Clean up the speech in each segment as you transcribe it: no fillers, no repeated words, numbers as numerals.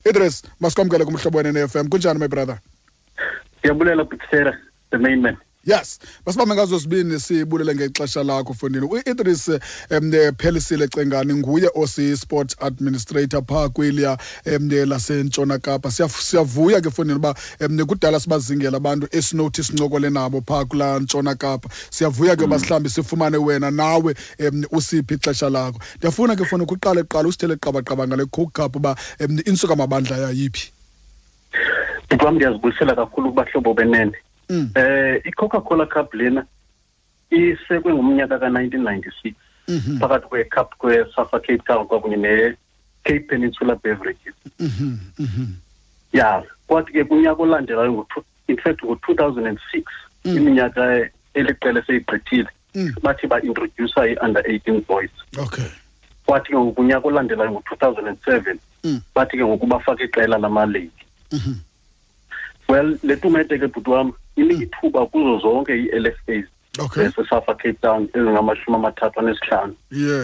Idris, masikwamkele kuMhlobo Wenene FM. Kunjani, my brother? Ndiyabulela, Butera, the main man. Yes, masibambe ngazo sibini, sibulele ngexesha lakho, fondini. U-Idris Phelisile Cengani nguye osi-sport administrator phaa kwiliya laseNtshona Kapa. Siyavuya ke, fondini, uba kudala sibazingela abantu esinothi sincokole nabo phaa kulaa Ntshona Kapa. Siyavuya ke uba sihlambi sifumane wena nawe usiphi ixesha lakho. Ndiyafuna ke, fondini, kuqale kuqala usithele qabaqaba ngale Coke Cup, uba insuka mabandla yayiphi. Bhuti wam, ndiyazibulisela kakhulu kubahlobo benene. I-Coca-Cola Cup lena isekwe ngomnyaka ka-1996 phakathi kwe-cup kwe-Safa Cape Town kwakunye ne-Cape Peninsula Beverages. Ya, kwathi ke kunyaka olandelayo, in fact ngo-2006, iminyaka eliqela eseyigqithile, bathi ba-introduce i-under 18 boys. Kwathi ke ngoku kunyaka olandelayo, ngo-2007, bathi ke ngoku bafake iqela lamalady. Well, le tumente ke, bhuti wam, inika ithuba kuzo zonke ii-LFAs zaseSafa Cape Town ezingama-35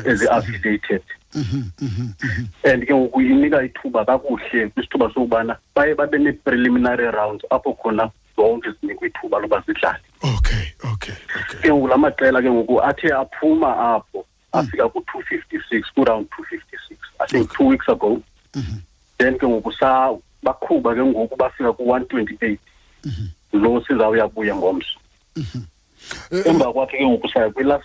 ezi-affiliated. And ke ngoku inika ithuba kakuhle kwisithuba sokubana baye babe nee-preliminary rounds apho khona zonke zinikwa ithuba loba zidlale. Ke ngoku la maqela ke ngoku athe aphuma apho afika ku-256, ku-round 256, I think 2 weeks ago. Then ke ngoku sa baqhuba ke ngoku bafika ku-128 lo sizawuya kuye ngomso. Emva kwakhe ke ngoku saya kwi-last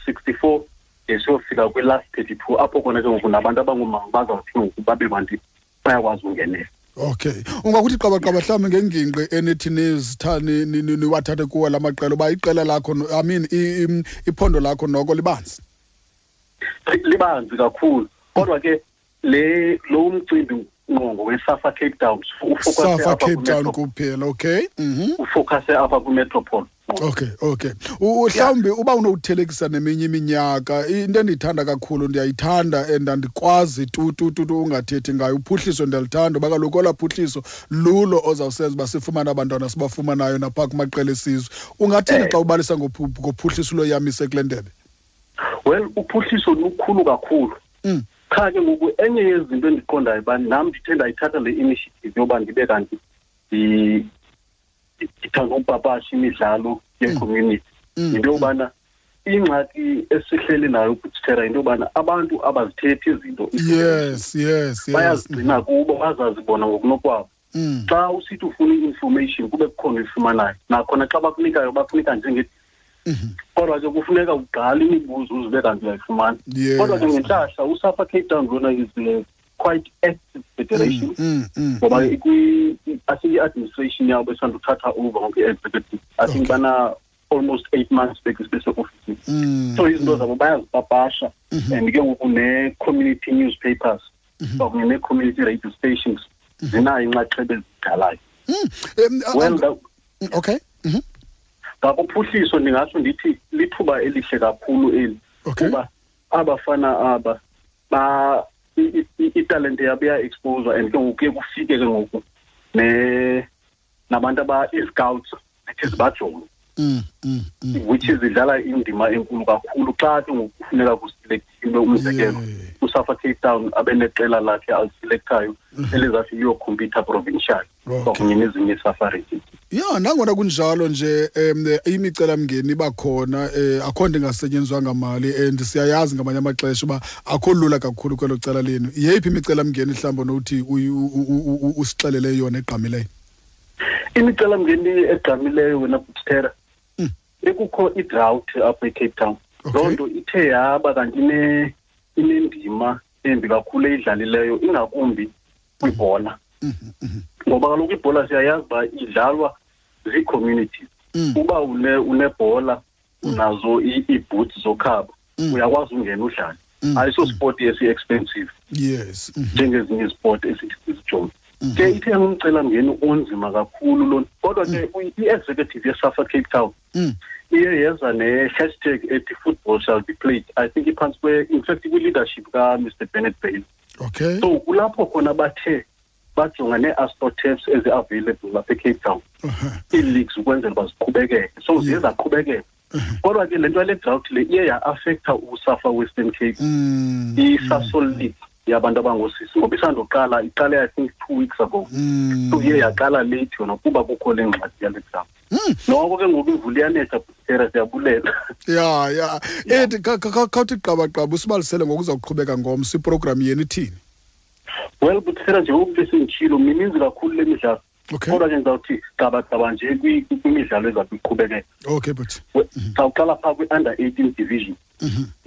64 de siyofika kwi-last 32, apho khona ke ngoku nabantu abangoomama bazawuthi ke ngoku babe bantu bayakwazi ungenela. Okay, ungakuthi qabaqaba mhlawumbi ngengingqi enithi niwathathe kuwo la maqela, uba iqela lakho, I mean iphondo lakho noko libanzi? Libanzi kakhulu, kodwa ke le lo mcimbi ngqongo weSafa Cape Town. Safa Cape Town kuphela, okay. Ufocuse apha kwimetropole. Okay, mhlawumbi uba unowuthelekisa neminye iminyaka, into endiyithanda kakhulu, ndiyayithanda and andikwazi tu tu tu tu ungathethi ngayo, uphuhliso. Ndiyalithanda uba kaloku olaa phuhliso lulo ozawusenza uba sifumane abantwana sibafumanayo naphaa kumaqela esizwe. Ungathini xa ubalisa ngophuhliso loyamise kule ndebe? Well, uphuhliso lukhulu kakhulu. Qha ke ngoku enye yezinto endiqondayo uba nam ndithe ndayithatha le initiative yoba ndibe kanti ndithanda upapasha imidlalo ye-community, yinto yobana ingxaki esihleli nayo kuthera yinto yobana abantu abazithethi izinto. Bayazigcina kubo, bazazi bona ngokunokwabo. Xa usithi ufuna i-information, kube kukhona uyifumanayo, nakhona xa bakunikayo bakunika njenge, kodwa ke kufuneka ugqale imibuzo uzibe kanti uyayifumana. Kodwa ke ngentlahla uSafa Cape Town lona is a quite active federation, ngoba I think i-administration yabo esanduthatha over ngoku, i-executive, I think bana almost 8 months beseofisini. So izinto zabo bayazipapasha, and ke ngoku ne-community newspapers kwakunye nee-community radio stations zinayo inxaxheba ezidlalayo. Well, Ngakuphuhliso ndingatsho ndithi lithuba elihle kakhulu eli, kuba abafana aba ba italente yabo iya-exposwa, and ke ngoku kuye kufike ke ngoku ne nabantu aba ii-scouts zithi zibajonge, which is idlala indima enkulu kakhulu xa ke ngoku kufuneka kuselectiwe. Umzekelo, uSafa Cape Town abe neqela lakhe aliselectayo elizathi liyokhompyutha provincial kwakunye nezinye iiSafa regions. Ya, nangona kunjalo nje imicelamngeni iba khona, akho nto ingasetyenziswanga mali, and siyayazi ngamanye amaxesha uba akho lula kakhulu kwelo cala lenu. Yeyiphi imicelamngeni mhlawumbi onothi usixelele yona egqamileyo? Imicelamngeni egqamileyo, wena Butera, bekukho i-drought apha eCape Town. Loo nto ithe yaba kanti inendima embi kakhulu eyidlalileyo, ingakumbi kwibhola, ngoba kaloku ibhola siyayazi uba idlalwa zii-communities. Uba unebhola, unazo ii-boots zokhaba, uyakwazi ungena udlale. Ayiso sport esi-expensive njengezinye iziport esithi sizijonge. Ke ithe yangumcelamngeni onzima kakhulu lona, kodwa ke i-executive yeSafa Cape Town iye yeza ne-hashtag ethi "Football shall be played". I think iphantsi kwe, in fact kwi-leadership kaMr Bennett Bailey. So kulapho khona bathe bajonga nee-astroturfs ezi-available lapha eCape Town, ii-leagues ukwenzela uba ziqhubekeke. So ziye zaqhubekeka, kodwa ke le nto yale drought le iye ya-affecta uSafa Western Cape, iSasol League. Yabantu abangoosisi, ngoba isandoqala, iqale I think 2 weeks ago. So iye yaqala late yona kuba kukho le ngxaki yale dam. Noko ke ngoku imvula iyanetha, Butera, siyabulela. Ya. Ethi khawuthi qabaqaba, usibalisele ngokuza kuqhubeka ngomso, iprogram yenu ithini? Well, Butera, njengoku besenditshilo, mininzi kakhulu le midlalo. Kodwa ke ndizawuthi qabaqaba nje kwimidlalo ezawuthi iqhubekeka. Okay, but Sawuqala phaa kwi-under 18 division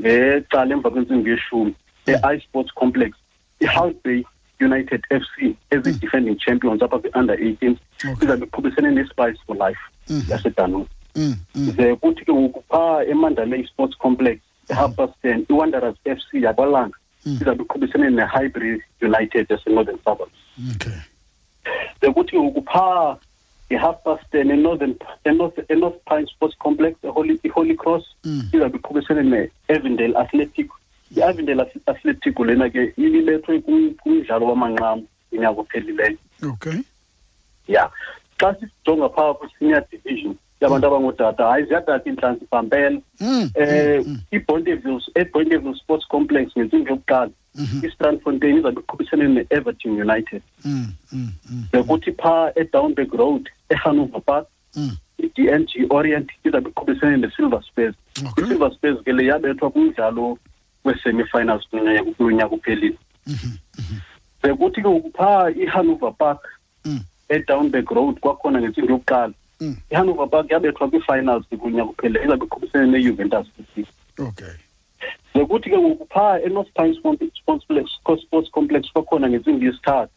ngecala emva kwentsimbi yeshumi e-iSports Complex, i-Hout Bay United FC ezi-defending champions apha kwi-under 18 izabe iqhubisene ne-Spice for Life yaseDunoon. Ze kuthi ke ngoku phaa eMandalay Sports Complex e-10:30, iWanderers FC yakwaLanga izabe iqhubisene ne-Highbury United yaseNorthern Suburbs. Ze kuthi ke ngoku phaa nge-10:30 eNorthern eNorth eNorth Pine Sports Complex, eHoly Cross izabe iqhubisene ne-Avondale Athletic. I-Avondale Athletic lena ke ibibethwe kumdlalo wamanqamu unyaka ophelileyo. Ya, xa sijonga phaa kwi-senior division yabantu abangootata, hayi, ziyatata iintlantsi pampela. iBonteville, eBonteville Sports Complex ngentsimbi yokuqala, iStrandfontein izabe iqhubisene ne-Everton United. Bekuthi phaa eDownberg Road eHanover Park, i-DNG Orient izabe iqhubisene ne-Silver Spurs. I-Silver Spurs ke le yabethwa kumdlalo wee-semi-finals kulo nyaka uphelile. Bekuthi ke ngoku phaa iHanover Park eDownberg Road kwakhona ngentsimbi yokuqala, iHanover Park yabethwa kwii-finals kunyaka uphelileyo, izabe iqhubisene neJuventus FC. Bekuthi ke ngoku phaa eNorth Pine Sports Complex kwakhona ngentsimbi yesithathu,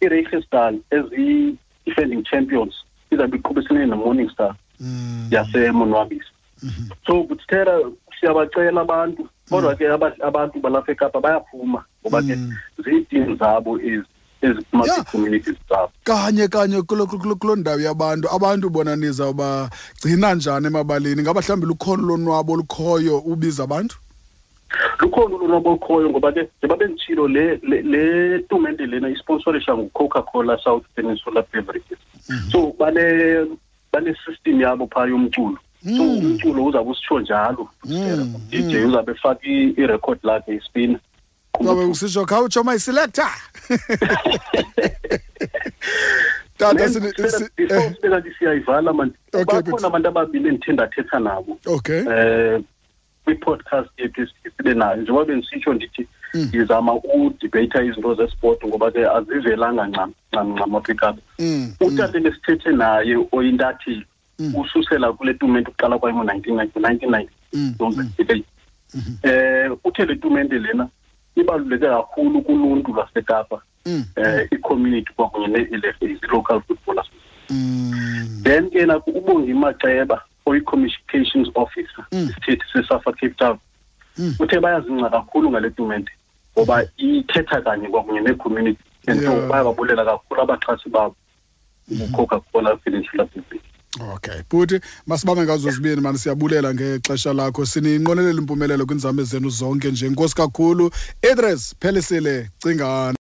iReichsdal ezi-defending champions izabe iqhubisene neMorning Star yaseMonwabisa. So Buthera, siyabacela abantu, kodwa ke abantu balapha eKapa bayaphuma ngoba ke ziitim zabo ezi eziphuma kwii-communities zabo. Kanye kanye kuloo ndawo yabantu, abantu bona nizawubagcina njani emabaleni? Ngaba mhlawumbi lukhona ulonwabo olukhoyo ubiza abantu? Lukhona ulonwabo olukhoyo, ngoba ke njengoba benditshilo, le tumente lena isponsorisha nguCoca-Cola South Peninsula Beverages. So bane-system yabo phaa yomculo. So umculo uzawube usitsho njalo, DJ uzawube efaka irekhodi lakhe ispina. Zabe usitsho, "Khawutsho, my selector." Tata, Before sibe kanti siyayivala man, bakhona abantu ababini endithe ndathetha nabo kwi-podcast yethu esibe nayo. Njengoba bendisitsho ndithi ndizama udibheyitha izinto zesport ngoba ke azivelanga ncam ncam ncam apha eKapa. Utata ebesithethe naye oyintatheli ususela kule tumente uqala kwayo ngo-1990, 1990 eight, uthe le tumente lena ibaluleke kakhulu kuluntu lwaseKapa, i-community kwakunye nee-LFAs, i-local football association. Then ke naku uBongi Maxeba oyi-communications officer, isithethi seSAFA Cape Town, uthe bayazingca kakhulu ngale tumente ngoba ithetha kanye kwakunye nee-community and so bayababulela kakhulu abaxhasi babo, uCoca-Cola Peninsula Beverage. Okay bhuti, masibambe ngazo zibini mani, siyabulela ngexesha lakho, sininqwenelela impumelelo kwiinzame zenu zonke nje. Nkosi kakhulu, Idris Phelisile Cingane.